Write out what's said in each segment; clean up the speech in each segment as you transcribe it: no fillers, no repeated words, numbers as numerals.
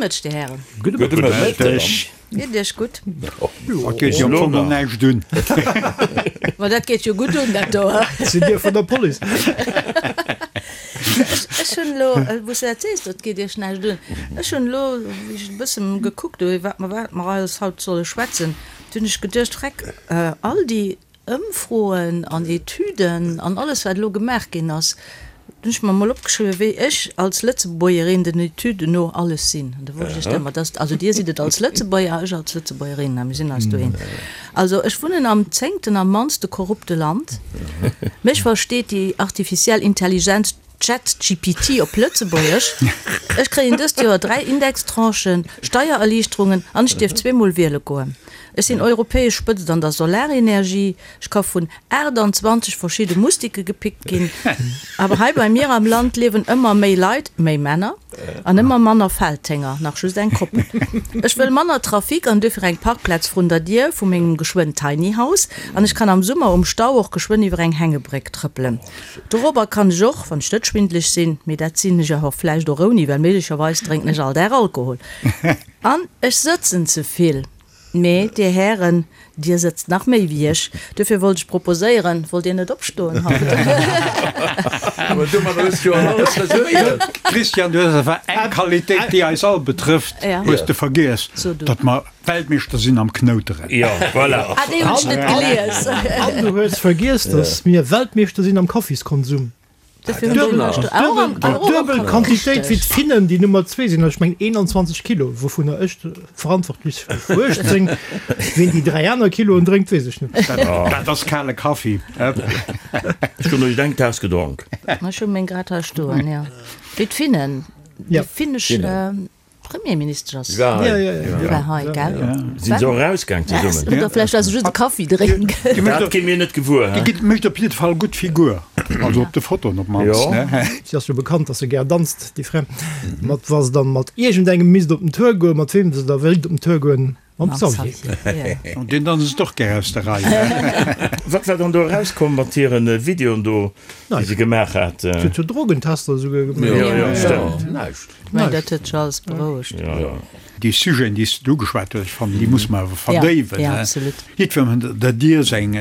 Mëtteg, Dir Hären. Gudde Mëtteg. Geet Iech gutt? Dat geet jo am Fong och näischt un. Ma dat geet jo gutt un, dat do. Sidd Dir vun der Police? Ech hunn elo, wou s de dat sees, dat geet Iech näischt un, ech hunn elo, wéi ech e bësse gekuckt hu iwwer wat mer alles haut solle schwätzen, du hunn ech geduecht, Vreck, all déi Ëmfroen an Etüden an alles wat elo gemaach ginn ass, hunn ech mer mol opgeschriwwen, wéi ech als Lëtzebuergerin den Etüden no alles sinn. An da wollt ech iech dat mat, dass, also Dir sidd et als Lëtzebuerger, ech als Lëtzebuergerin, a mir sinn eis doheem. Also ech wunnen am zéngten am mannste korrupte Land. Mech versteet déi artificiell Intelligenz ChatGPT op Lëtzebuergesch, Ech kréien dëst Joer 3 Indextranchen, Steiererliichterungen an ech dierf zweemol wiele goen. Ech sinn europäesch Spëtzt an der Solarenergie. Ech ka vun 28 verschidde Mustike gepickt ginn. Awer hei bei mir am Land liewen ëmmer méi Leit, méi Männer, an ëmmer manner Feldhénger, nach just eng Koppel. Ech wëll manner Trafic an duerfir eng Parkplaz vrun der Dier vu mengem geschwënn Tiny House. An ech kann am Summer um Stau och geschwënn iwwer eng Hängebréck trëppelen. Dorobber kann ech och, wann ech net schwindeleg sinn, mee dat sinn ech awer vläicht och ouni, well méiglecherweis drénken ech all Dag Alkohol. An ech sëtzen ze vill. Mee, Dir Hären, Dir sëtzt nach méi wéi ech. Duerfir wollt ech proposéieren, Wollt Dir net opstoen haut? Awer domadder hues du jo alles resuméiert. Christian, du hues awer eng Qualitéit, déi eis all betrëfft, hues de vergiess, datt mer Weltmeeschter sinn am Knouteren. Jo, voilà. Ah, déi hunn ech net gelies. An du hues vergiess, datt mir Weltmeeschter sinn am Kaffiskonsum. Duebel Quantitéit wéi d'Finnen, déi Nummer zwee sinn, ech mengen 21 Kilo, wouvunner ech verantwortlech si fir 18. Ween déi dräi aner Kiloen drénkt, weess ech net. Dat ass kale Kaffi. Ech hunn elo eng Taass gedronk. Ech hu meng grad hei stoen, jo. Wéi d'Finnen, déi finnesch. Premierministesch ass. War hei. War hei, gell? Sinn se och erausgaang zesummen? Oder vläicht war se just e Kaffi drénken. Dat gi mir net gewuer. Déi mécht op jidde Fall gutt Figur, also op de Fotoen op d'mannst. Si ass jo bekannt, datt se gär danzt, déi Fra. Mat wa se dann mat iergendengem misst op den Tour goen, mat weem se da wéilt op den Tour goen? Mam Xavier. An deen danzt och gär aus der Rei. Wat war dann do erauskomm mat hiren Videoen do, déi se gemaach hat? Si huet jo Drogentester esouguer gemaach. Jo, jo, stëmmt. Näischt. Mä dat huet sech alles berouegt. Jo, jo. Déi Sujeten, déi s de ugeschwat hues, ech fannen, déi muss mer awer verdéiwen. Ja, absolut. Jiddwerem der Dier seng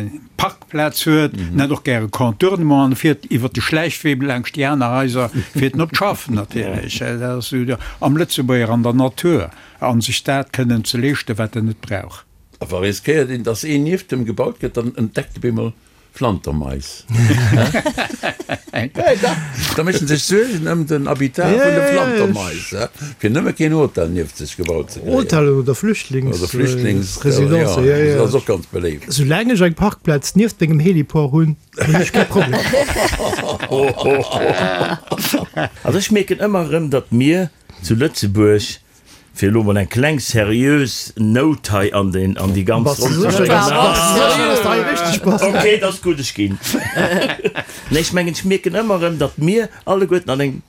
Parkplaz huet, en hätt och gär e Contournement an e fiert iwwer de Schläichwee laangscht déi aner Haiser, fiert en op d'Schaff natierlech. Dat ass esou am Lëtzebuerger an der Natur a sech dat kënnen ze leeschten, wat en net brauch. A wa riskéiert een, dass een nieft em gebaut gëtt, dann entdeckt e bemol Flantermais. Da mécht en sech Suergen ëm den Habitat vun de Flantermais, fir nëmme keen Hotel nieft sech gebaut ze kréien. Hotellen oder Flüchtlingsresidencen, jo, jo. Dat ass och ganz beléift. Soulaang ech eng Parkplaz nieft mengem Heliport hunn, hunn ech kee Problem. Also ech mierken ëmmer erëm, datt mir zu Lëtzebuerg Fir elo mol eng kleng seriös Nout hei an den, an déi ganz Ronn ze bréngen. Ok, et ass gutt, ech ginn. Nee, ech mengen, ech mierken ëmmer erëm, datt mir alleguerten an engem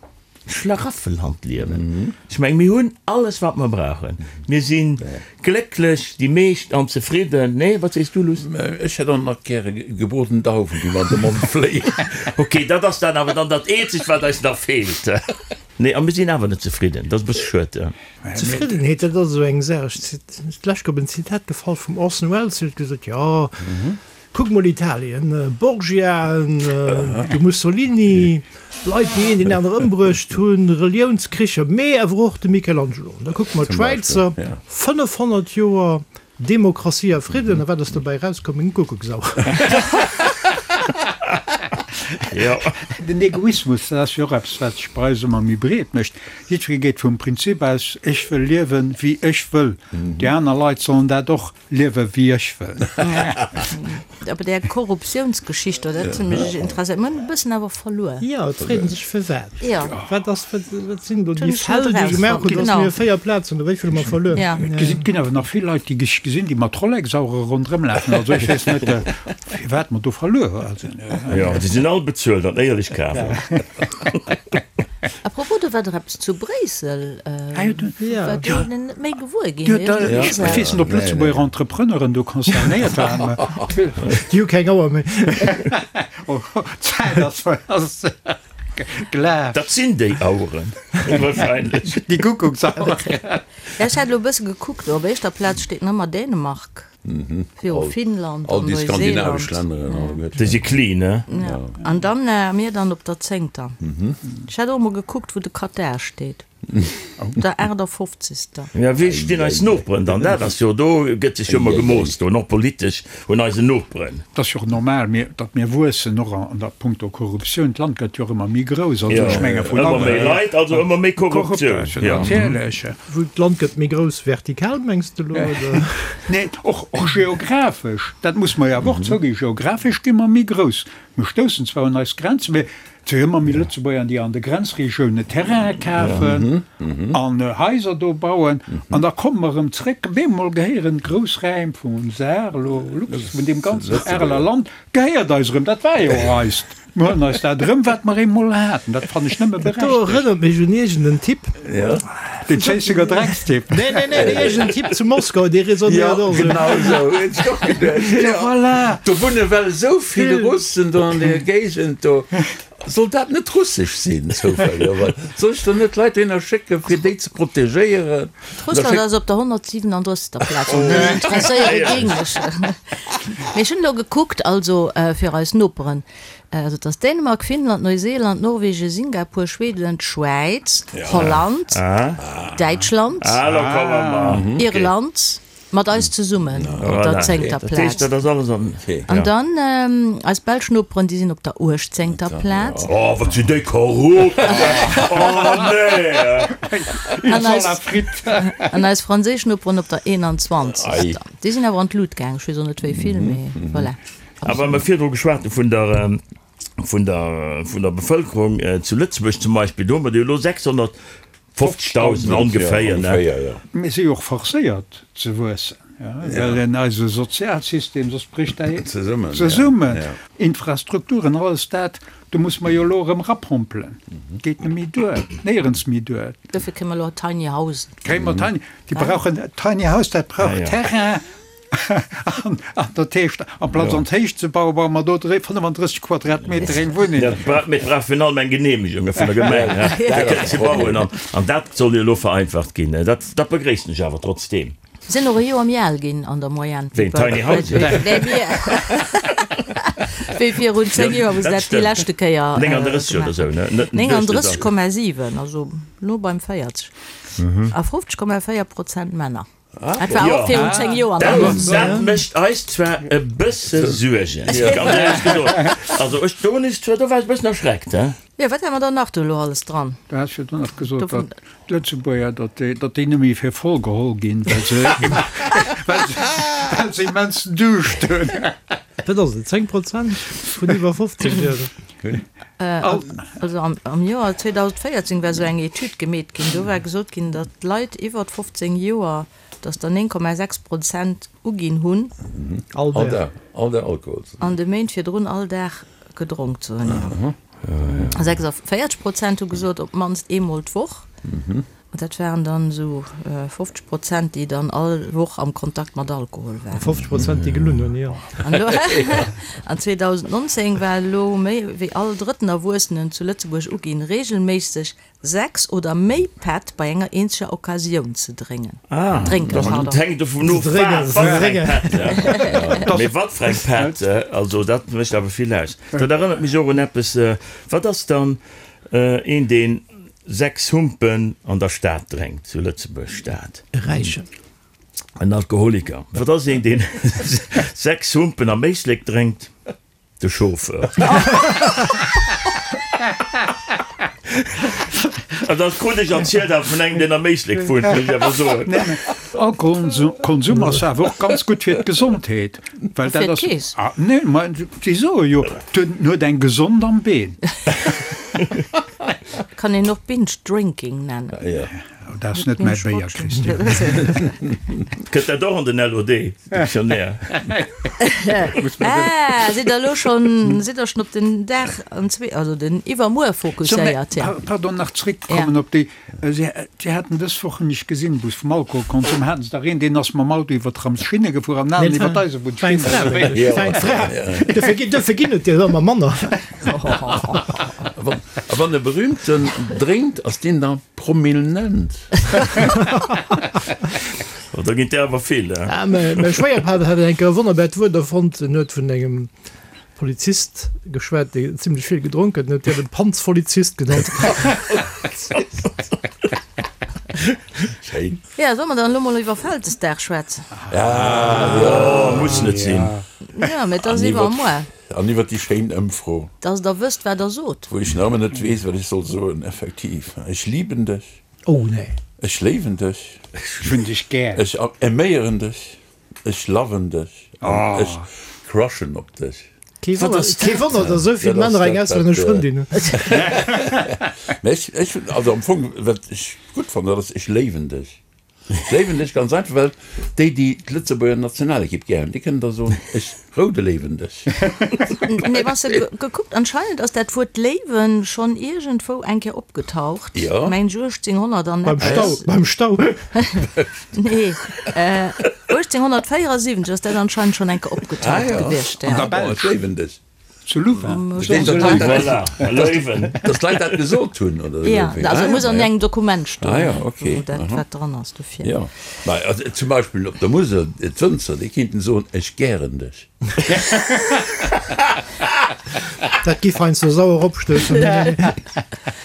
Schlaraffenland liewen. Ech mengen, mir hunn alles, wat mer brauchen. Mir si glécklech, déi meescht, an zefridden. Nee, wat sees du, Luss? Ech hätt och nach gäre gebroden Dauwen, déi mer an de Mond fléien. Ok, dat ass dann awer dann dat Eenzegt, wat eis nach feelt. Nee, a mir sinn awer net zefridden. Dat ass e bësse schued. Zefriddenheet, dat ass esou eng Saach. Ech sinn d'lescht op en Zitat gefall vum Orson Welles, deen huet gesot, Jo, kuck mol Italien, Borgiaen, de Mussolini, Leit, déi een deen aner ëmbruecht hunn, Reliounskricher, mee awer och de Michelangelo. An da kucke mer d'Schwäizer, 500 Joer Demokratie a Fridden, a wat ass dobäi erauskomm? Eng Kuckucksauer. Jo. Den Egoismus, dat ass jo och eppes, wat sech bei eis ëmmer méi breet mécht. Jiddweree geet vum Prinzip aus, ech wëll liewen, wéi ech wëll. Déi aner Leit sollen dat och liewen, wéi ech wëll. Awer där Korruptiounsgeschicht do, dat huet mech interesséiert. Mir hunn e bëssen awer verluer. Jo, et freet een sech firwat. Jo. Wat ass, wat, wat sinn do déi Fäll, déi gemaach hunn, datt mir 4 Plazen oder wéi vill hu mer verluer? Ja. Et ginn awer nach vill Leit, déi ech gesinn, déi mat Rolex-Auere ronderëm lafen. Also ech weess net, firwat mer do verluer sinn. Jo, déi sinn all bezuelt an éierlech kaf. A propos, do war dach eppes zu Bréissel, wat do net méi gewuer ginn. Ech weess net, ob Lëtzebuerger Entrepreneuren do concernéiert waren. Déi hu keng Auer méi. D'Zäit ass. Glaf. Dat sinn déi Aueren wahrscheinlech. Déi Kuckucksaueren. Ja, ech hat elo e bësse gekuckt, op éischter Plaz steet nach ëmmer Dänemark, viru Finnland All an déi skandinavesch Neuseeland. Länner alleguerten. Déi si clean, ne? Ja, an dann mir dann op der zéngter. Ech hat och emol gekuckt, wou de Katar steet. Op der 58. Ja, wéi stinn eis Noperen dann? Dat ass jo, do gëtt sech jo ëmmer gemooss do, och politesch, un eisen Noperen. Et ass jo och normal, mir, datt mir wuessen, och an der punkto Korruptioun. D'Land gëtt jo och ëmmer méi grouss. Also ech menge vun Ëmmer méi Leit, also ëmmer méi Korruptioun. Korruptioun, natierlech. Wou d'Land gëtt méi grouss vertikal, mengs de elo, oder? Nee, och, och geographesch, dat muss mer jo awer och zouginn, geographesch gi mer méi grouss. Mir stoussen zwar un eis Grenzen, mee et si jo ëmmer méi Lëtzebuerger, déi an de Grenzregiounen Terraine kafen an Haiser do bauen. An da komme mer erëm zréck, bemol gehéieren grouss Räim vum Saar, elo Lux, vun deem ganzen Areler Land, gehéiert eis erëm. Dat war jo och eist. Mir huelen eis dat erëm, wat mer eemol haten. Dat fannen ech nëmme Dat do berechtegt. erënnert mech un iergend en Typ. Den Schéissenger Dreckstipp. Nee, nee, nee, nee, iergend en Typ zu Moskau, dee raisonnéiert och esou. Genau esou hunn ech och geduecht. Ja, voilà. Do wunne well esou vill Russen do an deer Géigend do. Soll dat net russesch sinn zoufällegerweis? Soll ech dann net Leit dohinner schécken, fir déi ze protegéieren? Russland ass op der 137. Plaz, an mech interesséiere géing mech. Mee ech hunn elo gekuckt, also fir eis Noperen, also et ass Dänemark, Finnland, Neuseeland, Norwegen, Singapur, Schweden, d'Schwäiz, Holland, Däitschland, Irland, mat eis zesummen op der zéngter Plaz. An dann eis belsch Noperen, déi sinn op der uechtzéngter Plaz. Oh, wat sinn déi korrupt! Oh nee! An eis, an eis franséisch Noperen op der 21. Déi sinn awer an d'Lut gaang, ech weess och net wéi vill, mee voilà. A wa mer virdru geschwat hu vun der, vun der, vun der Bevëlkerung zu Lëtzebuerg zum Beispill, do hu mer der jo elo 600 50.000 ongeféier, ne? Mir si jo och forcéiert ze wuessen, well en eise Sozialsystem, soss brécht däi zesummen. Infrastrukturen, alles dat, do muss mer jo elo erëm erapompelen. Geet net méi duer, néierens méi duer. Dofir kréie mer elo Tiny Housen. Kréie mer Tiny, déi brauchen, Tiny House, dat brauch Terrain. An dat heescht, amplaz an d'Héicht ze bauen, baue mer do 35 Quadratmeter eng Wunneng. Dat mee brauch virun allem eng Geneemegung vun der Gemeng, fir kënnen ze bauen. An dat soll jo elo vereinfacht ginn. Dat dat begréissen ech awer trotzdeem. Sinn och e Joer méi al ginn an der Moyenne. Wéi d'Tiny Houses? Nee, mir. Wéi virun 10 Joer, wou se dat déi leschte Kéier 39 oder esou, ne? 39,7, also no beim 40. A 50,4 Prozent Männer. Dat war och virun 10 Joer. Dat mécht eis zwar e bësse Suergen, ganz éierlech gesot. Also ech, do hunn ech zwar, do war ech e bëssen erschreckt, he. Jo, wat hate mer dann nach do elo alles dran? Du has jo dunn nach gesot, datt d'Lëtzebuerger, datt déi, datt déi net méi fir voll geholl ginn, well se, well se, well se immens Duuscht hunn. Wat ass et, 10 Prozent vun iwwer 50 Joer? Also am Joer 2014 war esou eng Etüd gemeet ginn, do war gesot ginn, datt d'Leit iwwer 15 Joer, datt der 9,6 Prozent uginn hunn, All Dag. All Dag Alkohol ze an de Méint virdrun all Dag gedronk ze hunn. 46 Prozent hu gesot, op d'mannst eemol d'Woch. An dat waren dann esou 50 Prozent, déi dann all Woch am Kontakt mat Alkohol waren. 50 Prozent, déi gelunn hunn, jo. An elo, an 2019 war elo méi wéi all drëtten Erwuessenen zu Lëtzebuerg uginn, reegelméisseg 6 oder méi Pätt bei enger eenzeger Occasioun ze dréngen. Ah, Drénken, pardon. Dat hänkt dovun of, Ze dréngen, wat ze fir eng dréngen. Pätt. Mee wat fir eng Pätt, also dat mécht awer vill aus. Dat erënnert mech och un eppes, wat ass dann een, deen 6 Humpen an der Stad drénkt, zu Lëtzebuerg Stad. E Räichen. En Alkoholiker. Wat ass een, deen 6 Humpen am Éislek drénkt? De Chauffeur. An dat krut ech erzielt awer vun engem, deen am Éislek wunnt, muss ech awer soen. Alkoholkonsum ass awer och ganz gutt fir d'Gesondheet. Well dat ass, ah, nee, ma si soe jo, en huet eng gesond am Been. Kann een och Binge Drinking nennen. Oh, dat ass net mäi Béier, Christian. Kënnt dat och an den LOD, Dictionnaire? Ah, sidd der elo schonn, sidd der schonn op den Dag an zwee, also den Iwwermuer fokusséiert, ja. Pardon, nach zréckkommen op déi Si haten dës Woch, hunn ech gesinn, wou se vum Alkoholkonsum haten se dach een, deen ass mam Auto iwwer d'Tramsschinne gefuer an den aneren iwwer d'Eisebunnsschinne. War eng Fra. Dofir ginn, dofir ginn et der ëmmer manner. A wann e Berühmten drénkt, ass deen da promilnent? Oh, da ginn der awer vill, hein? Ah, mäi Schwéierpapp hat eng Kéier e wonnerbart Wuert erfonnt. En huet vun engem Polizist geschwat, dee zimlech vill gedronk huet, en huet deen de Panzvolizist genannt. Schéin. Ja, solle mer dann elo mol iwwer Vältesdag schwätzen? Ah, jo. Muss net sinn. Ja, mee et ass iwwer muer. An iwwer déi schéin Ëmfro. Dass Der wësst, wat Der sot. Wou ech nach ëmmer net weess, wat ech soll soen. Effektiv, ech liben dech. Oh, nee. Ech léiwen dech. Ech hunn dech gär. Ech aiméieren dech. Ech loven dech. An ech crushen op dech. Kee Wonner, kee Wonner, dass esou vill Männer eng auslännesch Frëndin hunn. Mä ech, ech, also am Fong, wat ech gutt fannen, dat ass, ech léiwen dech. Ech léiwen dech ganz einfach, well déi, déi d'Lëtzebuerger Nationalekipp gär hunn, déi kënnen da soen, ech roude léiwen dech. Mee wann s de gekuckt, anscheinend ass dat Wuert léiwen schonn iergendwou eng Kéier opgetaucht, mengen ech 1800 an eppes. Beim Stau, beim Stau. Nee, 1874 ass dat anscheinend schonn eng Kéier opgetaucht gewiescht. An der Belsch. Ech léiwen dech. Zu Louvain. Dass d'Leit dat gesot hunn, oder? Jo, also et muss an engem Dokument stoen, Ah ja, okay. wou dat wat dran ass dofir. Jo, mä also zum Beispill op der Musel, d'Wënzer, déi kéinten soen, Ech gären dech. Dat giff heiansdo sauer opstoussen.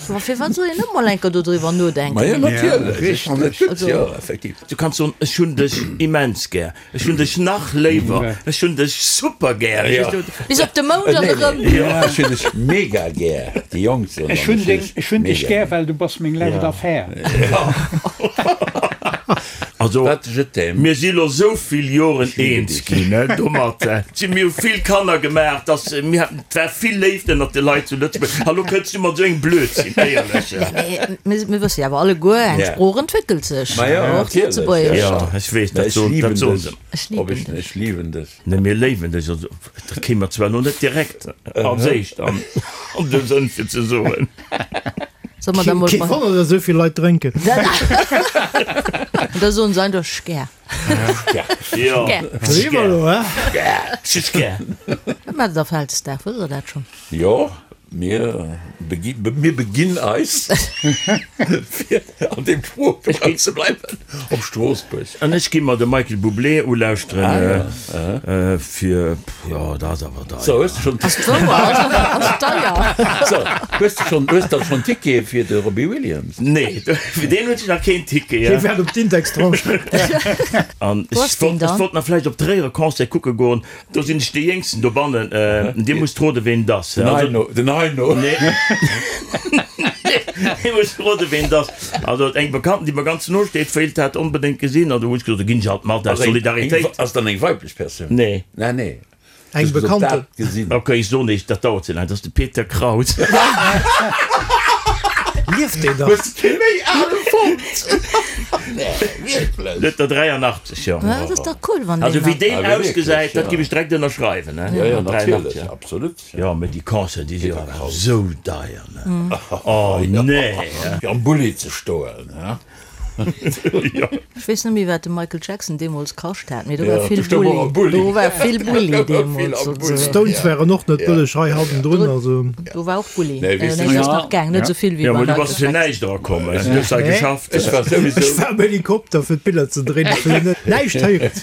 Ma firwat soll een net mol eng Kéier dodriwwer nodenken? Ma jo, natierlech, ech fannen et gutt, jo, effektiv. Du kanns soen, Ech hunn dech immens gär. Ech hunn dech nach léiwer, ech hunn dech super gär. Bis op de Mound an erëm. Ech hunn dech mega gär, déi Jonk soen dann, ech hunn dech gär, well du bass meng lescht Affär. Also, mir si lo sou vill Joren eens ginn domat. Si mir hu vill Kanner gemaach, dass mir haten, et war vill Léift ënnert de Leit zu Lëtzebuerg. A lo kënns du mat esou engem Blödsinn, éierlech. Mee mir wësse jo awer alleguer, eng Sprooch entwéckelt sech, och d'Lëtzebuergescht. Jo, ech weess, dat soen dat soen se. Ech liben dech. Ech liwen dech. Nee, mir léiwen dech. Also, dat kéim mer zwar elo net direkt als éischt an de Sënn, fir ze soen. Soll mer da mol. Kee Wonner, datt esou vill Leit drénken. Da soen se einfach Schgär. Jo, Schgär. Schgär. Wat maacht der Vältesdag? Wësst der dat schonn? Jo, mir mir beginn eis, fir an deem Sproochbereich ze bleiwen, op Stroossbuerg. An ech gi mer de Michael Bublé ulauschteren, fir, jo, dat ass awer deier. So, hues de schonn. Ass d'wouer, ass deier. So, hues de schonn, hues de schonn Tickete fir de Robbie Williams? Nee, fir deen hunn ech nach keen Ticket. Hie waart op d'Indextranche. An ech wollt, ech wollt nach vläicht op Tréier e Concert kucke goen. Do sinn ech dee Jéngsten dobannen. Dir musst roden, ween et ass. Den Heino. Den Heino. Nee. Dir musst roden, ween et ass. Also eng Bekannten, déi mer ganz no steet, wéilt dat onbedéngt gesinn. An do hunn ech gesot, do ginn ech halt mat, aus Solidaritéit. Ass dann eng weiblech Persoun? Nee. Nee, nee. Eng Bekannten. Ok, ech soen iech, dat dauert ze laang, dat ass de Peter Kraus. Lieft deen nach? Hues de kee méi ale fonnt? Nee, wierklech? Huet der 83, jo. Dat ass dach cool, wann deen Also wéi nach. deen ausgesäit, dat giff ech direkt ënnerschreiwen, ne? Jo, jo, natierlech, absolut. Jo, mee déi Concerten, déi si jo awer esou deier, ne? Oh, nee! Fir am Bulli ze stoen, he? Ech weess net méi wat de Michael Jackson deemools kascht hat, mee do war vill Bulli, do war vill Bulli deemools. D'Stones waren och net bëlleg hei hannendrun, also. Do war och Bulli, nee dat ass nach gaang, net esou vill wéi beim Michael Jackson. Näischt erakomm, du hues hei geschafft. Ech war souwisou. Ech war am Helikopter fir d'Biller ze dréinen, ech hunn net näischt héieren.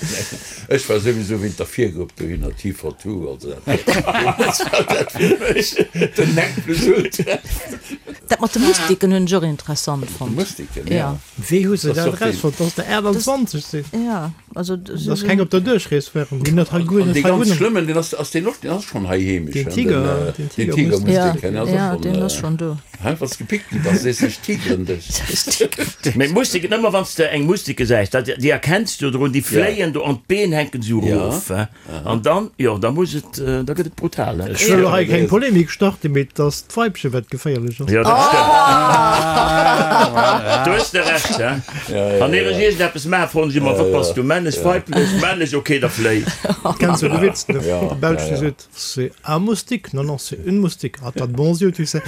Ech war souwisou wéint der Virgrupp dohinner, T42, also dat war dat fir mech den Nec plus ultra. Dat mat de Mustiken hunn ech och interessant fonnt. Mustiken, ja. Wéi hu se dat erausfonnt, dass der 28 sinn? Ja, also. Dass keng op der Duerchrees waren, déi net hei guer net Dee hei ganz wunnen. schlëmmen, deen ass, ass deen och, deen ass schonn hei heemesch, Deen hein, Tiger, den, den den Tigermustik. Tigermustiken, Ja, ass och ja, schonn, deen ass schonn do. Hein, wann s de gepickt gi bass, sees de, ech tigeren dech. Mee Mustiken, ëmmer wann s de eng Mustik gesäis, dat, déi erkenns du drun, déi fléien do an d'Been hänken esou erof, hein. An dann, jo, da muss et, da gëtt et brutal, hein. Ech wëll elo hei keng Polemik starten, mee et ass d'Weibchen, wat geféierlech ass. Jo, dat stëmmt. Do hues de Recht, hein. Wann ier ech iergendeppes maachen, froen ech ëmmer, Wat bass du, männlech, weiblech? Männlech, ok, da fléi. Kenns jo de Witz, de Belsch, dee seet, C'est un moustique, non, non, c'est une moustique. Ah, t'as de bons yeux, tu sais.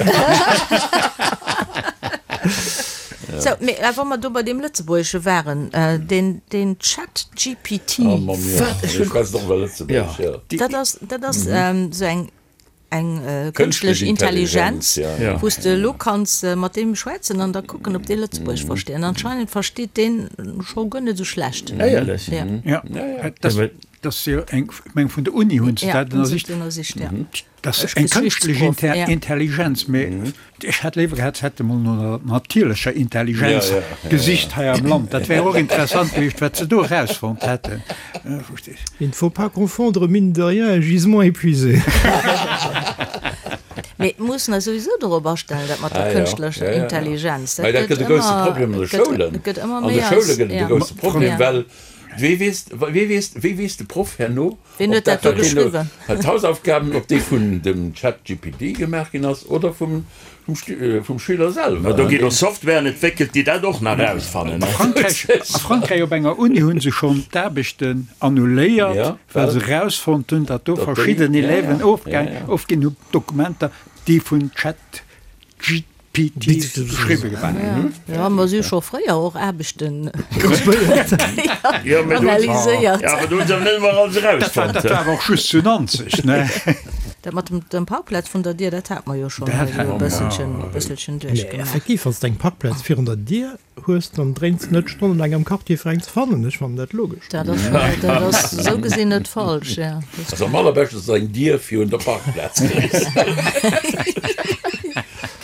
Sou, mee wa mer do bei deem Lëtzebuergesche waren, deen, deen ChatGPT. Oh Mann, jo. Ech schwätzen och iwwer Lëtzebuergesch, jo. Dat ass, dat ass esou eng. Eng kënschtlech Intelligenz, wou s de elo kanns mat deem schwätzen an da kucken, ob dee Lëtzebuergesch versteet. An anscheinend versteet deen scho guer net esou schlecht. Éierlech? Ja. Dat ass jo eng, ech meng vun der Uni hunn se dat ënnersicht. Dat ass eng kënschtlech Intelligenz, mee ech hätt léiwer gehat, se hätte mol no der natierlecher Intelligenz gesicht hei am Land. Dat wär och interessant gewiescht, wat se do erausfonnt hätten. Il ne faut pas confondre mine de rien et gisement épuisé. Mee mir mussen eis souwisou dorop astellen, dat mat der kënschtlecher Intelligenz. Dat gëtt e grousse Problem an de Schoulen. An de Schoule gëtt et e grousse Problem, well wee weess, wee weess, wéi weess de Proff herno, Wien huet dat do geschriwwen? D'Hausaufgaben, ob déi vun dem ChatGPT gemaach ginn ass oder vum vum Schüler selwer. Ma do ginn och Softwaren entwéckelt, déi dat och nach erausfannen. A Frankräich, a Frankräich op enger Uni hu se schonn d'Aarbechten annuléiert, well se erausfonnt hunn, datt do verschidden Élèven ofginn hu Dokumenter, déi vun ChatGPT geschriwwe gi waren. Jo, mer si scho fréier och Aarbechten analyséiert. Jo, awer do hu se net ëmmer alles erausfonnt. Dat war awer och just zu Nanzeg, ne? Dat mat dem Parkplaz vun der Dier, dat hate mer jo schonn hei esou e bësselchen, e bësselchen duerchgemaach. Effektiv, wann s de eng Parkplaz virun der Dier hues, dann dréins de net stonnelaang am Quartier fir eng ze fannen. Ech fannen dat logesch. Dat ass, dat ass esou gesinn net falsch, ja. Also am allerbeschten ass eng Dier virun der Parkplaz kriss.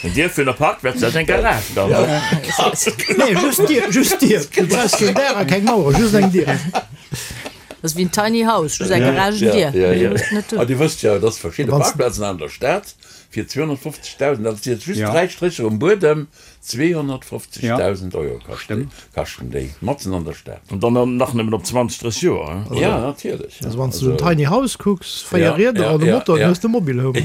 Eng Dier virun der Parkplaz, dat ass eng Garage dann. Nee, just d'Dier, just d'Dier. Du brauchs keen Daach a keng Mauer, just eng Dier. Dat ass wéi en Tiny House, just eng Garagendier. Ja, ja, ja. A Dir wësst jo, dass verschidde Parkplazen an der Stad fir 250.000, dat si jetzt just dräi Strécher um Buedem, 250.000 Euro kaschten, kaschten déi, matzen an der Stad. An dann nach nëmmen op 20, 30 Joer, he? Ja, natierlech. Also wann s du en Tiny House kucks, 4 Rieder an e Motor, dann hues de e Mobile Home.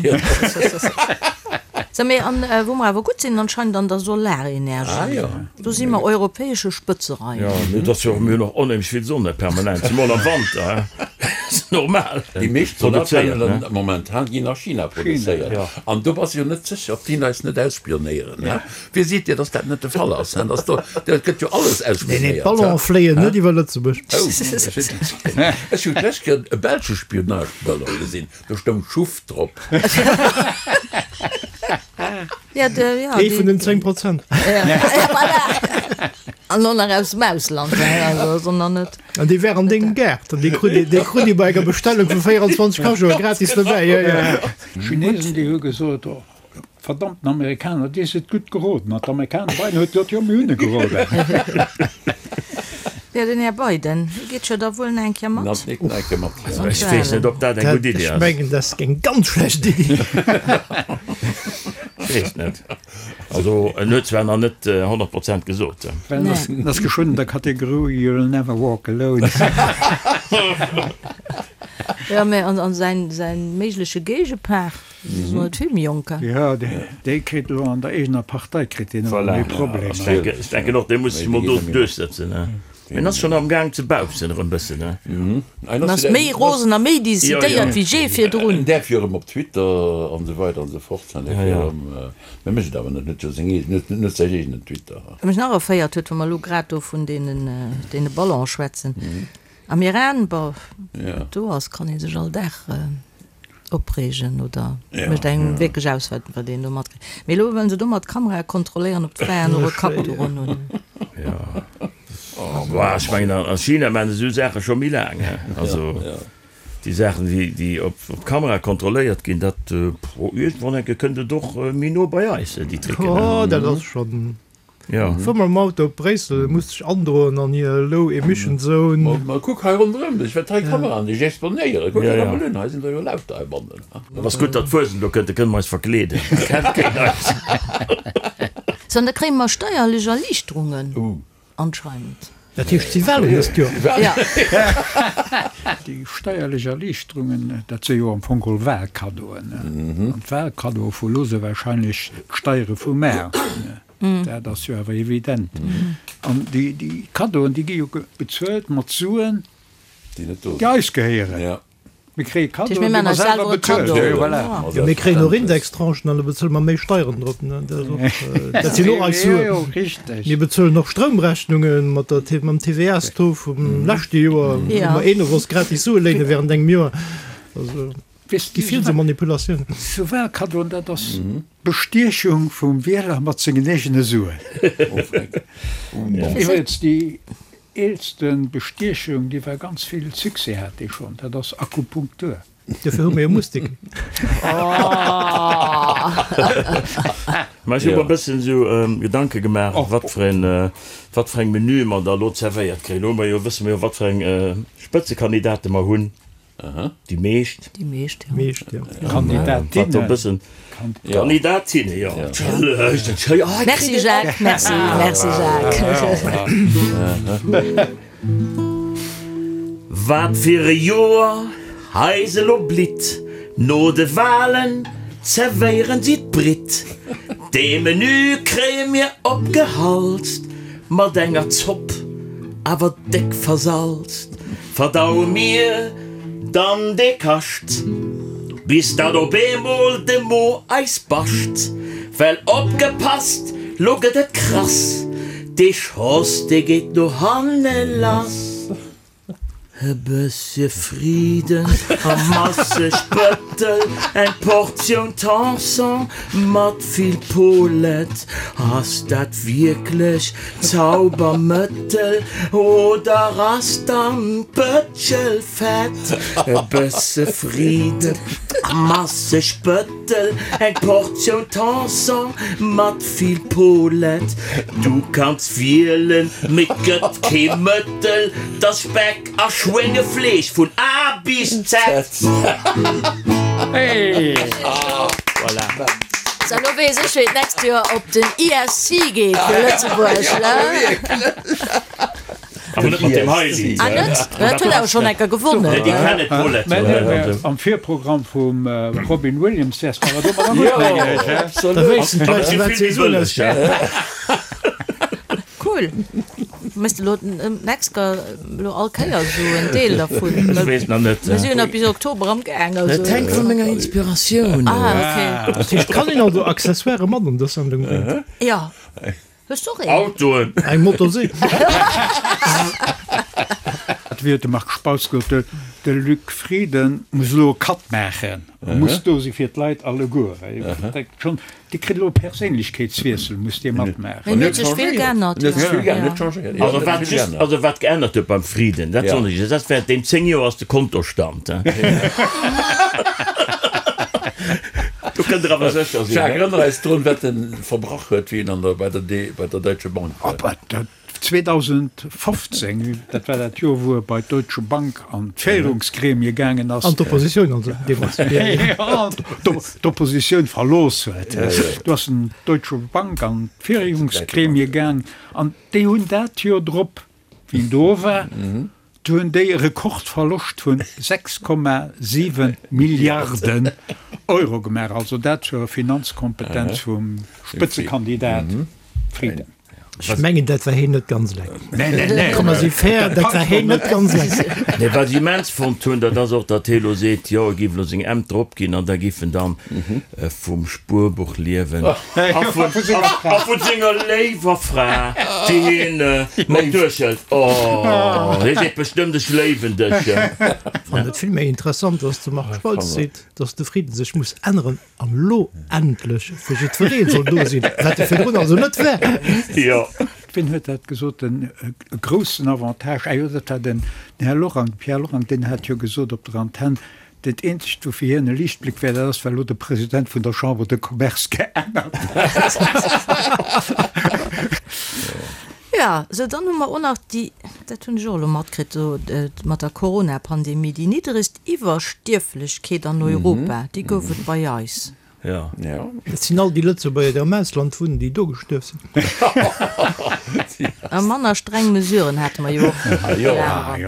Sou, mee an wou mer awer gutt sinn anscheinend an der Solarenergie, do si mer europäesche Spëtzereiter. Jo, mee et ass jo och, mir hunn och onheemlech vill Sonne permanent, zemol am Wanter, ass normal. Déi meescht Solarpanelen momentan ginn a China produzéiert an do bass jo net sécher, ob déi eis net ausspionéieren. Wie seet dir, dass dat net de Fall ass? Dass do, dat gëtt jo alles ausspionéiert. Nee, nee, d'Ballonen fléien net iwwer Lëtzebuerg. Oh, ech hunn d'lescht Kéier e belsche Spionageballon gesinn. Do stoung Schuff drop. Ja, de, ja, Ee vun den 10 Prozent. Ja, voilà. An och nach aus dem Ausland, also sondern net. An dee wär an dengem Gaart an dee krut ee, dee krut ee bei enger Bestellung vu 24 Cajoe gratis dobäi. Ja, ja. D'Chinesen, déi hu gesot, oh, Verdammten Amerikaner, dir sidd gutt geroden. An d'Amerikaner, Biden huet gesot, jo, mir hunn e geroden. Jo, den Här Biden, hie geet jo da wuel nach eng Kéier mat. Ech weess net, ob dat eng gutt Iddi ass. Ech mengen, dat ass eng ganz schlecht Iddi. Ech weess net. Also, en huet zwar nach net 100 Prozent gesot. Well en ass geschwënn an der Kategorie You'll never walk alone. Jo, mä an säin méigleche Géigepart? Jo, dee kritt elo an der eegener Partei kritt deen elo méi Problemer. Voilà, ech denken och, dee muss sech emol do duerchsëtzen. Mee en ass schonn am Gaang ze baupsen erëm bëssen. En ass méi rosen a méi decidéiert wéi jee virdrun. En däerf jo erëm op Twitter an esou weider an esou fort. En däerf jo erëm, mä mécht et awer net, en huet jo seng eegen, en huet säin eegenen Twitter. Wat mech nach erféiert huet, wa mer elo grad do vun deene Ballone schwätzen, am Iran, bon, wat do ass, kann ee sech all Dag Opreegen oder mécht engem wierklech aus, wat wat een do matkritt. Mee elo wëllen se domat d'Kamerae kontrolléieren, ob d'Fraen och e Kappduch un hunn. Jo, bah, ech mengen a China maachen se esou Saache scho méi laang, he. Also déi Saachen, déi déi op Kamera kontrolléiert ginn, dat, iergendwann enke kënnt et och méi no bei eis, déi Tricken, he. Oh, dat ass schonn Jo. Fuer mam Auto op Bréissel, muss dech androen an hir Low Emission Zone. Ma kuck hei ronderëm dech, wat hei Kameraen dech exponéieren. Kuck der emol un, hei sinn der jo lauter heibannen. Et ass gutt, datt d'Fuesent elo kënnt, da kënne mer eis verkleeden, da kennt keen eis. Sou, an da kréie mer steierlech Erliichterungen anscheinend. Dat heescht, si walen dëst Joer. Ja. Déi steierlech Erliichterungen, dat si jo am Fong geholl Wahlkaddoen. An d'Wahlkaddoe vu lo si wahrscheinlech d'Steiere vum Maart. Dat ass jo awer evident. An déi Kaddoen, déi gi jo bezuelt mat Suen, déi eis gehéieren. Mir kréie Kaddoen, déi mer selwer bezuelen. Voilà. Jo, mir kréien och Indextranchen an da bezuele mer méi Steieren drop. Dat sinn och eis Suen. Mir bezuelen och Stroumrechnunge mat der, mam TVA-Taux vum leschte Joer, wou mer een of ons gratis Sue léine während engem Joer. Also. Weess Gi vill sou Manipulatiounen. Sou Wahlkaddoen, dat ass Bestiechung vum Wieler mat sengen eegene Suen. Iwwregens déi eelste Bestiechung, déi war ganz vill Succès hat déi schonn, dat ass Akupunktur. Dofir hu mir jo Mustik. Mä ech hu mer e bëssen esou Gedanke gemaach, wat fir een, wat fir eng Menüe mer da elo zerwéiert kréien. Elo hu mer jo, wësse mer jo, wat fir eng Spëtzekandidate mer hunn. Déi meescht. Déi meescht, jo. Meescht, jo. Kandidatinnen. Kandidatinne, jo. Merci Jacques, merci, merci Jacques. Wat fir e Joer eis elo blitt, no de Walen zerwéieren si d'Britt. Dee Menü kréie mir opgehalst, mat enger Zopp, awer déck versalzt. Verdaue mir dann dee Kascht, bis datt op eemol de Mo eis bascht. Well opgepasst, lo gëtt et krass, dee Schoss, dee geet no hanne lass. E bëssche Friden a masseg Bëttel, eng Portioun Tanson mat vill Polet. Ass dat wierklech Zaubermëttel oder ass dann d'Bëtschel fett? E bësse Friden a masseg Bëttel, eng Portioun Tanson mat vill Polet. Du kanns wielen, mee 't gëtt kee Mëttel, 't ass Speck a Schwéngefleesch vun A bis Z. Voilà. So, lo weess ech, wéi et d'nächst Joer op den ESC geet fir Lëtzebuerg, ne? Awer net mat deem hei Lidd. Ah, net? Dat huet awer schonn eng Kéier gewonnen. Nee, déi kennen d'Paulette Mä jo. nee, mä am Virprogramm vum Robin Williams wäers de awer domadder gutt, mengen ech, he? Da wéissten d'Leit, wat si soen. Cool. Méchs de lo d'nächst Kéier lo all Kéier esou en Deel dervun? Ech weess nach net. Mir si jo nach bis Oktober am Gaang, also. Et hänkt vu menger Inspiratioun of. Ah, okay. Dat heescht, kann een also Accessoiren mat an dës Sendung bréngen? Jo. Hues du och een? Autoen. Eng Motorsee. Wéi huet de Marc Spautz gesot, de Luc Frieden muss elo e Cut maachen, muss do si fir d'Leit alleguer. Dee kritt elo e Perséinlechkeetswiessel, muss dee matmaachen. En huet sech vill geännert, jo. Also wat just, also wat geännert huet beim Frieden, dat soen ech, dat während deem 10 Joer ass de Kontostand. Do kënnt der awer sécher sinn. Jacques, erënner eis drun, wat en verbrach huet, wéi en an der, bei der, bei der Deutsche Bank war. 2015, dat war dat Joer, wou e bei d'Deutsche Bank an d'Féierungsgremie gaangen ass. An d'Oppositioun also deemools. Jo, d'Oppositioun verlooss huet. Do ass en d'Deutsche Bank an d'Féierungsgremie gaang an déi hunn dat Joer drop, wéi en do war, do hunn déi e Rekordverloscht vun 6,7 Milliarden Euro gemaach. Also dat zur Finanzkompetenz vum Spëtzekandidat Frieden. Ech mengen, dat war heen net ganz eleng. Nee, nee, nee. Komm, mer si fair, dat war heen net ganz eleng. Nee, wat ech immens fonnt hunn, dat ass och, datt hee elo seet, jo, e géif elo seng Ämter opginn an da géif en dann vum Spuerbuch liewen a vu senger léiwer Fra, déi hien mat duerchhëlt. Oh, hie seet bestëmmt, ech léiwen dech. Fannen et vill méi interessant, datt de Marc Spautz seet, datt de Frieden sech muss änneren. An elo endlech fir jiddweree soll do sinn, wat e virdrun also net war. Jo. Wien huet dat gesot, den groussen Avantage, ah jo, dat war den Här Lorang, de Pierre Lorang, deen hat jo gesot op der Antenn, dat eenzegt, wou fir hien e Liichtbléck wär, dat ass, well elo de President vun der Chambre de Commerce geännert huet. Jo, sou dann hu mer och nach déi, dat hunn ech och elo matkritt, do mat der Corona-Pandemie, déi niddregst Iwwerstierflechkeet an Europa, déi gouf et bei eis. Jo. Dat sinn all déi Lëtzebuerger, déi am Ausland wunnen, déi do gestuerf sinn. A manner streng Mesuren hate mer jo och. Jo,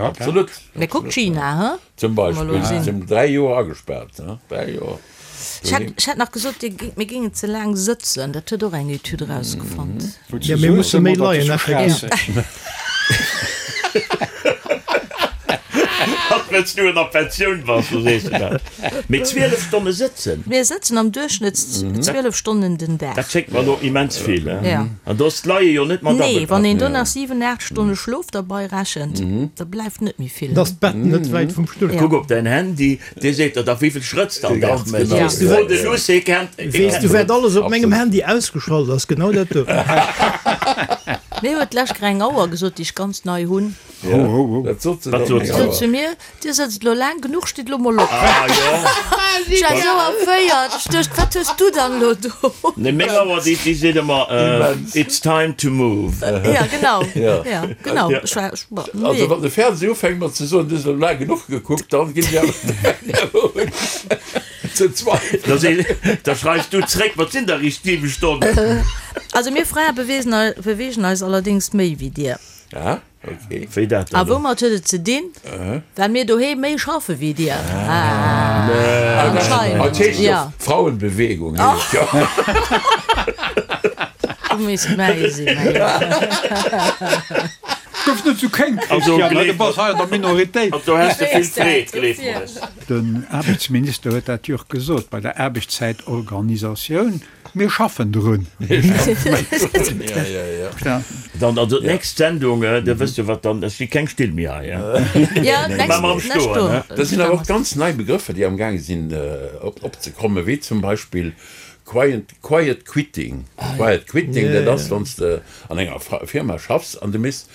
absolut. Mee kuck China, he? Zum Beispill, si sinn 3 Joer agespaart, he? 3 Joer. Ech hätt, ech hätt nach gesot, dir géing, mir géingen ze laang sëtzen. Dat huet och eng Etüd erausgefonnt. Jo, mir musse méi leien, effektiv. Wëlls du an der Pensioun bass, do sees de dat. Mee 12 Stonne sëtzen? Mir sëtzen am Duerchschnëtt 12 Stonnen den Dag. Dat schéngt mer elo immens vill. An do ass d'Leie jo net mat Nee, wann een do nach 7, 8 Stonne Schlof derbei rechent, da bleift net méi vill. Da ass d'Bett net wäit vum Stull. Kuck op däin Handy, dee seet der da wéivill Schrëtt s de am Dag méchs. Fro de Luss, hie kennt. Weess du wat alles op mengem Handy ausgeschalt ass? Genau dat do. Mir huet d'lescht Kéier eng Auer gesot, déi ech ganz nei hunn. Wat sot se dann? Sot zu mir, Dir sëtzt elo laang genuch, stitt elo mol op. Ah jo. Ech war esou erféiert, ech duecht, wat hues du dann elo do? Nee, meng Auer, déi, déi seet ëmmer, It's time to move. Ja, genau. Ja, genau. Ech war, ech, ma, nee. Also wann de Fernseh ufänkt mat ze soen, du hues elo laang genuch gekuckt, dann ginn ech awer un ze zweifelen. Da seet, da schreifs du zréck, Wat sinn da riicht 7 Stonnen? Also mir Frae beweegen, beweegen eis allerdéngs méi wéi dir. Ja. Okay. Wéi dat dann? A woumat huet et ze dinn? Well mir doheem méi schaffe wéi dir. Anscheinend. Dat heescht jo Frauenbewegung. Du misst mäi sinn. Gouf net sou kéng, Christian, du bass hei an der Minoritéit. Do häss de vill Freed, gleef mer es. Den Aarbechtsminister huet dat jo och gesot bei der Aarbechtszäitorganisatioun. Mir schaffen drun. Dann also d'nächst Sendung, da wësst Der wat dann, et gi keng Still méi hei. Maache mer am Stoen. Dat sinn awer och ganz nei Begrëffer, déi amgaange sinn opzekommen, wéi zum Beispill quiet, quiet quitting. Quiet quitting, dat ass, wann s de an enger Firma schaffs an du méchs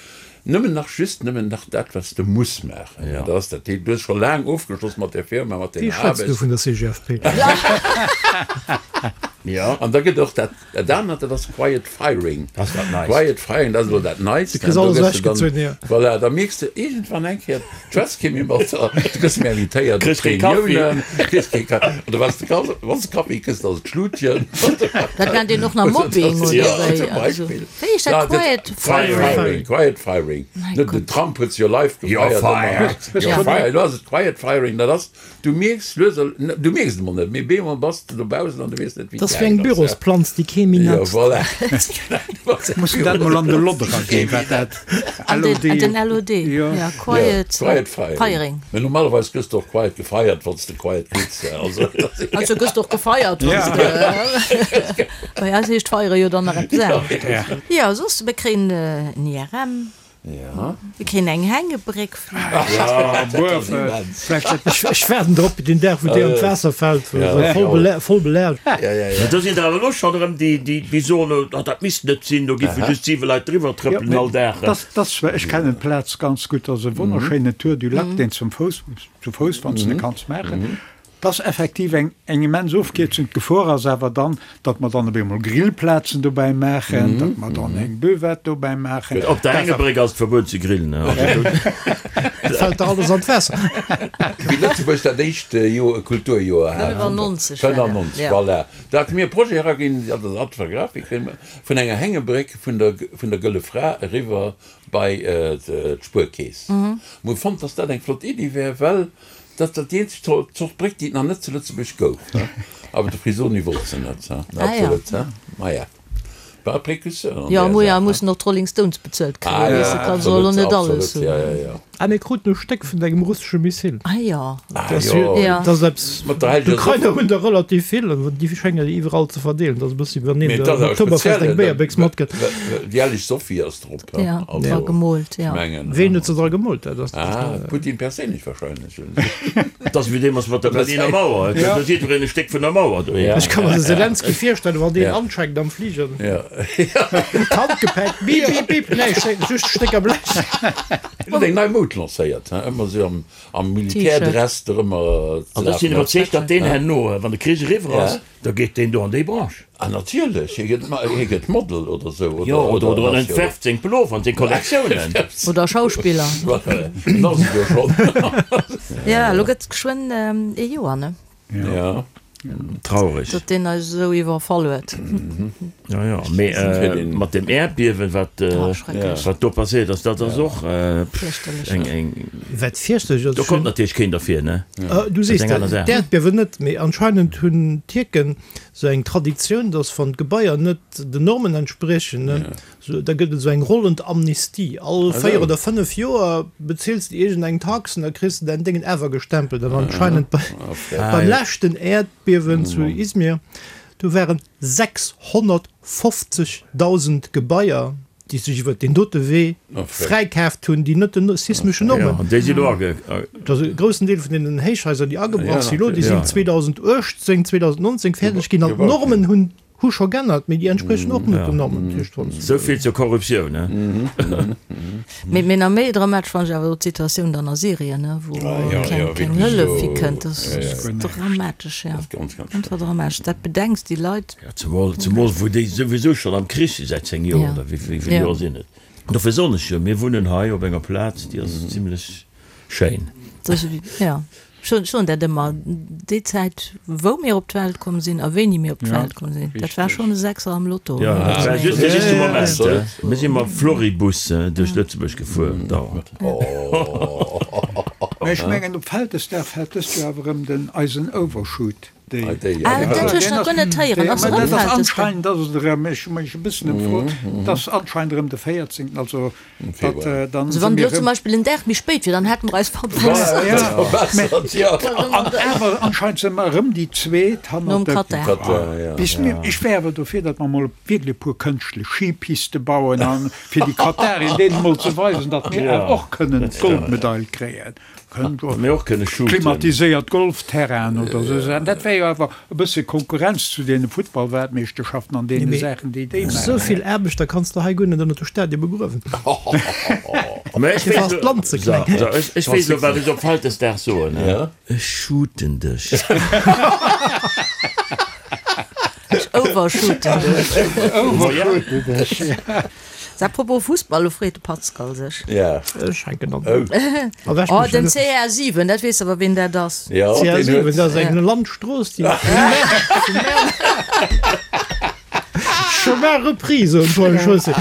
Nëmmen nach, just nëmmen nach dat, wat s de muss maachen. Dat ass dat. Du hues scho laang ofgeschloss mat där Firma, mat denger Aarbecht. Wéi schwätz du vun der CGFP? Jo. An da gëtt och dat, dat anert, dat ass Quiet Firing. Dat ass dat Neist. Quiet Firing, dat ass elo dat Neist. Du kriss alles ewechgezunn, jo. Voilà, da mierks de iergendwann eng Kéier, du schwätz kee méi mat der, du gëss méi invitéiert op Reuniounen, kriss kee Kaffi, oder wann s de Kaffi, wann s de Kaffi kriss, da ass et Schlutchen. Dat nennt een och nach Mobbing, oder wéi? Jo, zum Beispill. Wéi heescht dat? Quiet Firing? Quiet Firing. Net den Trump huet se jo live gefeiert. You're fired. Elo ass et Quiet Firing. Dat ass, du mierks lues a, du mierks et emol net, mee bemol bass de dobaussen an du weess net, wéi et gaangen ass. Dat ass wéi eng Bürosplanz, déi kee méi Jo, netzt. voilà. Muss dat mol an de lod eraginn, wat dat LOD. An den LOD, jo, Quiet Firing. Mee normalerweis gëss de och quiet gefeiert, wann s de quiet quits. Also, also gëss de och gefeiert, wann s de. Bei eis heescht feiere jo dann nach eppes anescht. Jo, soss, mir kréien en IRM. Mir kréien eng Hängebréck vläicht. Ech waarden drop, deen Dag, wou déi an d'Waasser fält, voll belaascht. Mä do sinn der awer elo schonn erëm, déi soen, oh, dat misst net sinn, do géife just siwe Leit driwwer trëppelen all Dag. Ech kennen d'Plaz ganz gutt. Dat ass e wonnerschéinen Tour du Lac, deen zum Fouss, zu Fouss, wann s de kanns maachen. Et ass effektiv eng eng immens Ofkierzung. D'Gefor ass awer dann, datt mer dann op eemol Grillplazen dobäi maachen, datt mer dann eng Buvette dobäi maachen. Op der Hängebréck ass et verbueden ze grillen. Et fält der alles an d'Waasser. Wéi Lëtzebuerg dat éischt Joer e Kulturjoer hat, 95 war dat, 95, voilà, do hate mir e Projet eraginn, dat ass Art Grafik, vun enger Hängebréck vun der vun der Gëlle Fra eriwwer bei d'Spuerkeess. Mir hu fonnt, datt dat eng flott Iddi wär, well Dat ass déi eenzeg Zort Bréck, déi et nach net zu Lëtzebuerg gouf. Awer de Frisoni wollt se net. Absolut. Maja, war e Précurseur an där Saach. Jo, mussen och d'Rolling Stones bezuelt kréien, weess de, kanns och elo net alles hunn. Ah, mir kruten e Stéck vun engem russesche Missil. Ah jo. Ah jo. Dat ass eppes, d'Ukrainer hunn der relativ vill, an déi schéngen iwwerall ze verdeelen. Dat ass e bëssi, wéi wann een um Oktoberfest eng Béierbéchs matkritt. Déi helleg Sophie ass drop. Ja, dra gemoolt, ja. Ween huet se dra gemoolt? Dat ass. Ah, Putin perséinlech wahrscheinlech. Dat ass wéi deemools mat der Berliner Mauer, da huet jiddwereen e Stéck vun der Mauer doheem. Ech ka mer de Selenskyj virstellen, wann deen ancheckt am Fliger. D'Handgepäck, bip, bip, bip, nee, just Stécker Blech. En huet eng nei Moud lancéiert, he, ëmmer esou am Militärdress dorëmmer ze An ech sinn lafen. iwwerzeegt, datt deen herno, wann de Krich eriwwer ass, Da geet deen do an déi Branche. Ah natierlech, hie gëtt, hie gëtt Model oder sou. Jo, oder, oder en entwerft seng Pullover an seng Kollektiounen. Oder Schauspiller. En ass et jo schonn. Jo, elo gëtt et geschwënn ee Joer, ne? Jo. Traureg. Datt deen eis esou iwwerfall huet. Jo, jo, mee mat dem Äerdbiewen, wat, wat do passéiert ass, dat ass och eng, eng. Wat fierchterlech ass. Do konnt natierlech keen derfir, ne? Du sees dat, d'Äerdbiewen net, mee anscheinend hunn d'Tierken esou eng Traditioun, datt wann d'Gebaier net den Normen entspriechen, Sou, da gëtt et esou eng rollend Amnistie. All 4 oder 5 Joer bezils de iergend eng Tax an da kriss de däin Déngen awer gestempelt. An anscheinend bei, beim leschten Äerdbiewen zu Izmir, do waren 650.000 Gebaier, déi sech iwwert deen dote Wee fräikaaft hunn, déi net den sismeschen Normen. An déi si lo age. Et ass e groussen Deel vun deenen Héichhaiser, déi agebrach si lo, déi sinn 2018, 2019 fäerdeg ginn an d'Normen hunn Hu scho g'ännert, mee déi entspriechen och net den Normen. Dat heescht, wann s. Sou vill zur Korruptioun, ne? Mee nach méi dramatesch fannen ech awer elo d'Situatioun dann a Syrien, ne, wou keng, keng Hëllef hikënnt. Dat ass dramatesch, jo, einfach dramatesch. Dat bedenks, déi Leit. Jo, zemol, zemol wou déi souwisou schonn am Krich si säit 10 Joer, oder wéi vill Joer sinn et? Dofir soen ech jo, mir wunnen hei op enger Plaz, déi ass zimlech schéin. Jo. Ech soen dat ëmmer, déi Zäit wou mir op d'Welt komm sinn a wéini mir op d'Welt komm sinn, dat war schonn e Sechser am Lotto. Jo, dat war just de richtege Moment. Mir si mam Floribus duerch Lëtzebuerg gefuer, dauernd. Mä ech mengen, op Vältesdag fält dëst Joer awer erëm den eisen Overshoot Day. Ah, dat hu ech nach guer net héieren. Ass erëm Vältesdag? Anscheinend ass et erëm, ech hu mech e bëssen ëmfrot, et ass anscheinend erëm de 14. Also Also wann et elo zum Beispill en Dag méi spéit wier, dann hätte mer eis verbessert. An awer anscheinend si mer erëm déi Zweet hannert dem Katar. Ech wär awer dofir, datt mer emol wierklech e puer kënschtlech Skipiste bauen, a fir déi Katarien deenen emol ze weisen, datt mir awer och kënnen d'Goldmedail kréien. Klimatiséiert Golfterrainen oder esou Saachen, dat wär jo awer e bësse Konkurrenz zu deene Futtballweltmeeschterschaften an deene Saachen, déi déi maachen. Esou vill Aarbechter kanns de hei guer net ënnert de Stadie begruewen. Dofir ass d'Land ze kleng. Ech weess elo, wat ech op Vältesdag soen, Ech shooten dech. Ech overshooten dech. Overshooten dech. A propos Fussball, lo freet de Pascal sech. Ja. Ech hänken an. Oh, den CR7, dat weess awer ween dat ass. Ja, deen huet. CR7, dat ass eng Landstrooss, déi. Chemin repris, soen d'Paul Chaussée.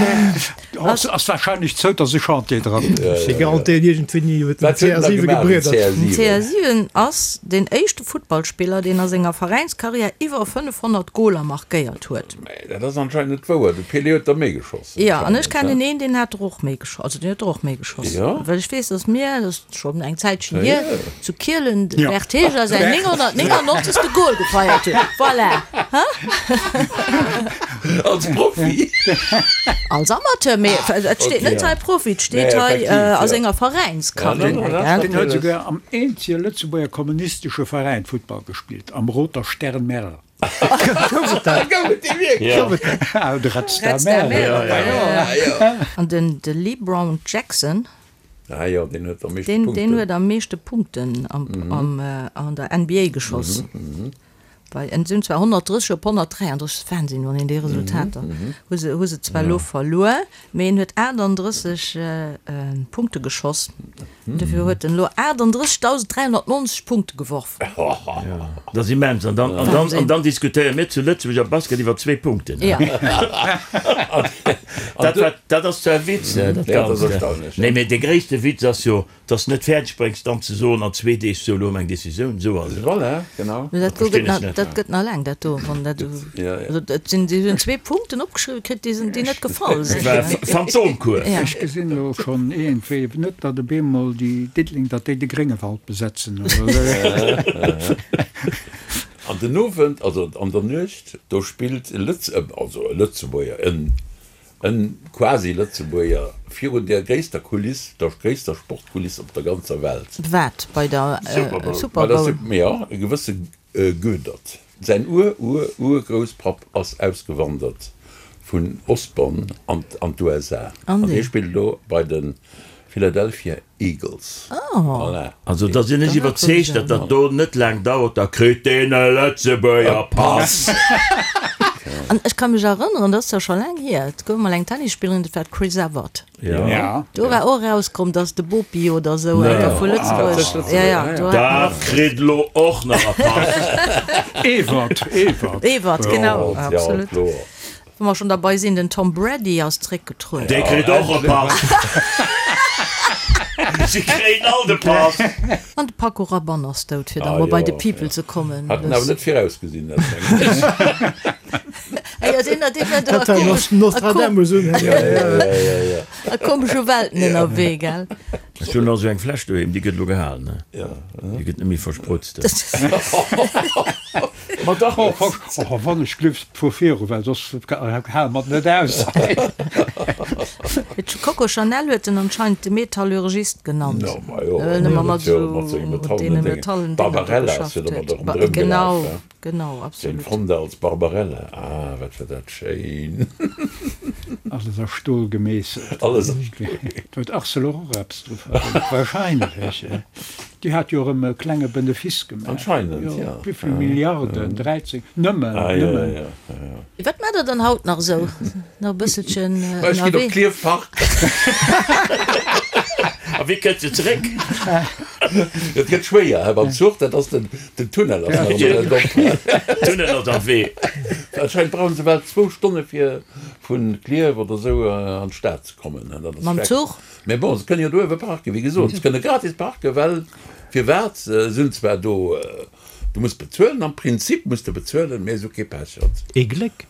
Ass wahrscheinlech zou, dass e Chantier dran. Ech garantéieren iergendwéini huet den CR7 gebriedert. Den CR7 ass deen éischte Futtballspiller, deen a senger Veräinskarriär iwwer 500 Goler markéiert huet. Mä dat ass anscheinend net wouer, de Pelé huet der méi geschoss. Jo, an ech kennen een, deen hat der och méi geschoss, also deen huet der och méi geschoss. Well ech weess, datt mir, dat ass schonn eng Zäitchen hier, zu Kielen de Bert Heger säin 999. Gol gefeiert huet. Voilà! Hein? Als Profi? Als Amateur, mee et steet net hei Profi, et steet hei a senger Veräinskarriär. Deen huet souguer am eenzege Lëtzebuerger kommunistesche Veräin Futtball gespillt, am Roter Stern Merl. Gouf et dat? Gouf et dee wierklech? Gouf et dat? Ah, de Red Star Merl. An den de LeBron Jackson. Ah jo, deen huet am meeschte Punkten. Deen huet am meeschte Punkten am an der NBA geschoss. Bei en sinn zwar 130 op 133, dat ass Wahnsinn, wann een déi Resultater hu se hu se zwar elo verluer, mee en huet 38 Punkte geschoss. Dofir huet en elo 38.390 Punkte geworf. Dat ass immens. An dann, an dann, an dann diskutéiere mir zu Lëtzebuerg am Basket iwwer zwee Punkten. Ja. Dat war, dat ass zwar e Witz, dat Ja, dat ass Ganzt. erstaunlech, ja. Nee, mee de gréisste Witz ass jo, dass de net fäerdeg bréngs, dann ze soen an zwee Deeg, sou, elo hu mer eng Decisioun, sou ass et. Voilà, genau. Mee dat do Verstinn gëtt ech nach, net. dat gëtt nach laang, dat do, wann dat, Ja, ja. also et sinn, si hunn zwee Punkten opgeschriwwen kritt, déi sinn, déi net gefall sinn. Dat war Phantomcours. Ja. Ech gesinn elo schonn iergendwéi net, datt op eemol déi Diddeleng, datt déi de Gréngewald besetzen oder esou. An den Owend, also an der Nuecht, do spillt e Lëtz, also e Lëtzebuerger, en E quasi Lëtzebuerger virun der gréisster Kuliss, der gréisster Sportkuliss op der ganzer Welt. Wat, bei der Super Bowl? Jo, e gewësse Goedert. Säin Ur-Ur-Urgrousspapp ass ausgewandert vun Osborn an d'USA an hie spillt elo bei de Philadelphia Eagles. Voilà. Also da sinn ech iwwerzeegt, datt dat do net laang dauert, da kritt deen e Lëtzebuerger Pass. An ech ka mech erënneren, dat ass zwar scho laang hier, et gouf mol eng Tennisspillerin, dat war d'Chris Evert. Ja. Do war och erauskomm, dass de Bopi oder esou eng Kéier vu Lëtzebuerg, ja, ja, do hat Dat kritt elo och nach e Pass. Evert, Evert. Evert, genau, Ja, absolut. kloer. Wa mer schonn derbei sinn, den Tom Brady ass zréckgetrueden. Dee kritt och e Pass. Si kréien all de Pass. An de Paco Rabanne ass dout, fir da Ah mol bei jo, de People ja. ze kommen. Hat en awer net virausgesinn, dat mengen ech. Ah jo, deen, deen war do a Dat war komesch, a Nostradamus un. Ja, ja, ja, ja, ja. a komesche Welten ënnerwee, gell? Ech hunn nach esou eng Fläsch doheem, déi gëtt elo gehalen, ne? Ja. Déi gëtt net méi versprutzt. Ma dach, och wann ech gleef fuer viru, well soss hale mer et net aus. Coco Chanel huet en anscheinend de Metallurgist genannt, No, ma jo, well en ëmmer mat huet jo mat senge esou deene Metallen Déngen. Metallen Dénger do Barbarella ass geschafft jo domat huet. och ronderëm gelaf, Genau, he? genau, Jane absolut. Fonda als Barbarella, ah, wat war dat schéin! Alles a Stol gemeesselt. Alles a Stol gemeesselt. Do huet Arcelor och eppes dru verdéngt, wahrscheinlech. Déi hat jo erëm e klenge Benefice gemaach. Anscheinend, jo. Wéivill Milliarden? 13? Nëmmen, nëmmen. Wat maacht der dann haut nach esou? Nach e bësselchen Ech ginn op ënnerwee? Klierf parken. A wéi kënnt se zeréck? Et gëtt schwéier, hä, mam Zuch, dat ass den, den Tunnel ass nach ëmmer net op. Tunnel ass am Wee. Anscheinend brauche se bal zwou Stonne fir vu Klierf oder esou an d'Stad ze kommen. Dat ass Mam schrecklech. Zuch? Mee bon, se kënnen jo do uewe parken, wéi gesot, se kënne gratis parken, well firwat? Se hunn zwar do, du muss bezuelen, am Prinzip muss de bezuelen, mee se hu kee Pechert. Ee Gléck!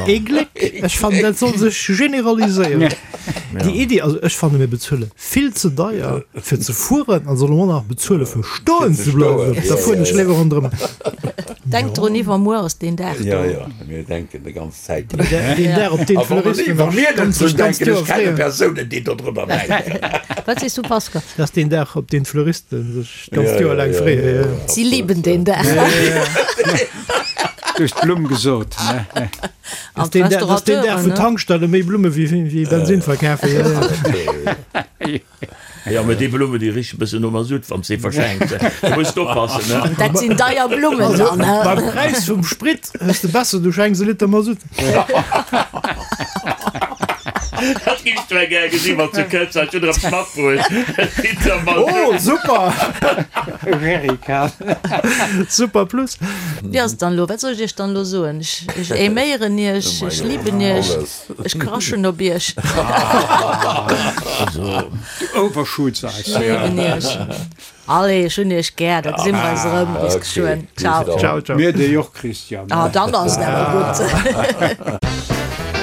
Ee Gléck! Ech fannen, dat soll sech generaliséieren, déi Iddi. Also ech fanne mir bezuele vill ze deier fir ze fueren an solle mer och nach bezuele fir stoen ze bleiwen. Da fueren ech léiwer ronderëm. Denk drun, iwwermuer ass deen Dag do. Jo, jo, mir denken de ganz Zäit drun. Deen Dag, op deen A wa d'Fleuristen wa mir net sech drun d'ganzt denken, Joer ech kenne freeën. Persounen, déi dodrunner denken. Wat sees du, Pascal? Dat ass deen Dag, op deen d'Fleuristen sech d'ganzt Ja, Joer ja, laang ja, freeën. ja, Jo, ja. jo. Si lieben den Dag. Du hues d'Blumm gesot, ne? Dat An ass deen Dag, dat ass deen Dag, d'Restaurateuren, wou ne? d'Tankstelle méi Blumme wéi, wéi Bensin verkafen. Jo, jo. Jo, mä déi Blummen, déi richen e bëssen no Masutt, wann s de verschenks. Du muss oppassen, ne? Dat sinn deier Blummen dann, he? Beim Präis vum Sprit hues de besser, du schenks e Liter Masutt. Dat géifs du gär gesinn, wann s du kënns. Ech hunn der eppes matbruecht, e Liter Masutt. Oh, super! E Jerrycan. Super plus. Wéi ass et dann elo? Wat soll ech iech dann elo soen? Ech aiméieren iech, ech liben iech. Ech crashen op iech. Du overshoots eis. Ech léiwen iech. Allez, ech hunn iech gär. Da gesi mer eis erëm. Bis geschwënn. Ciao. Ciao, ciao. Mir déi och, Christian. Ah, dann ass et awer gutt.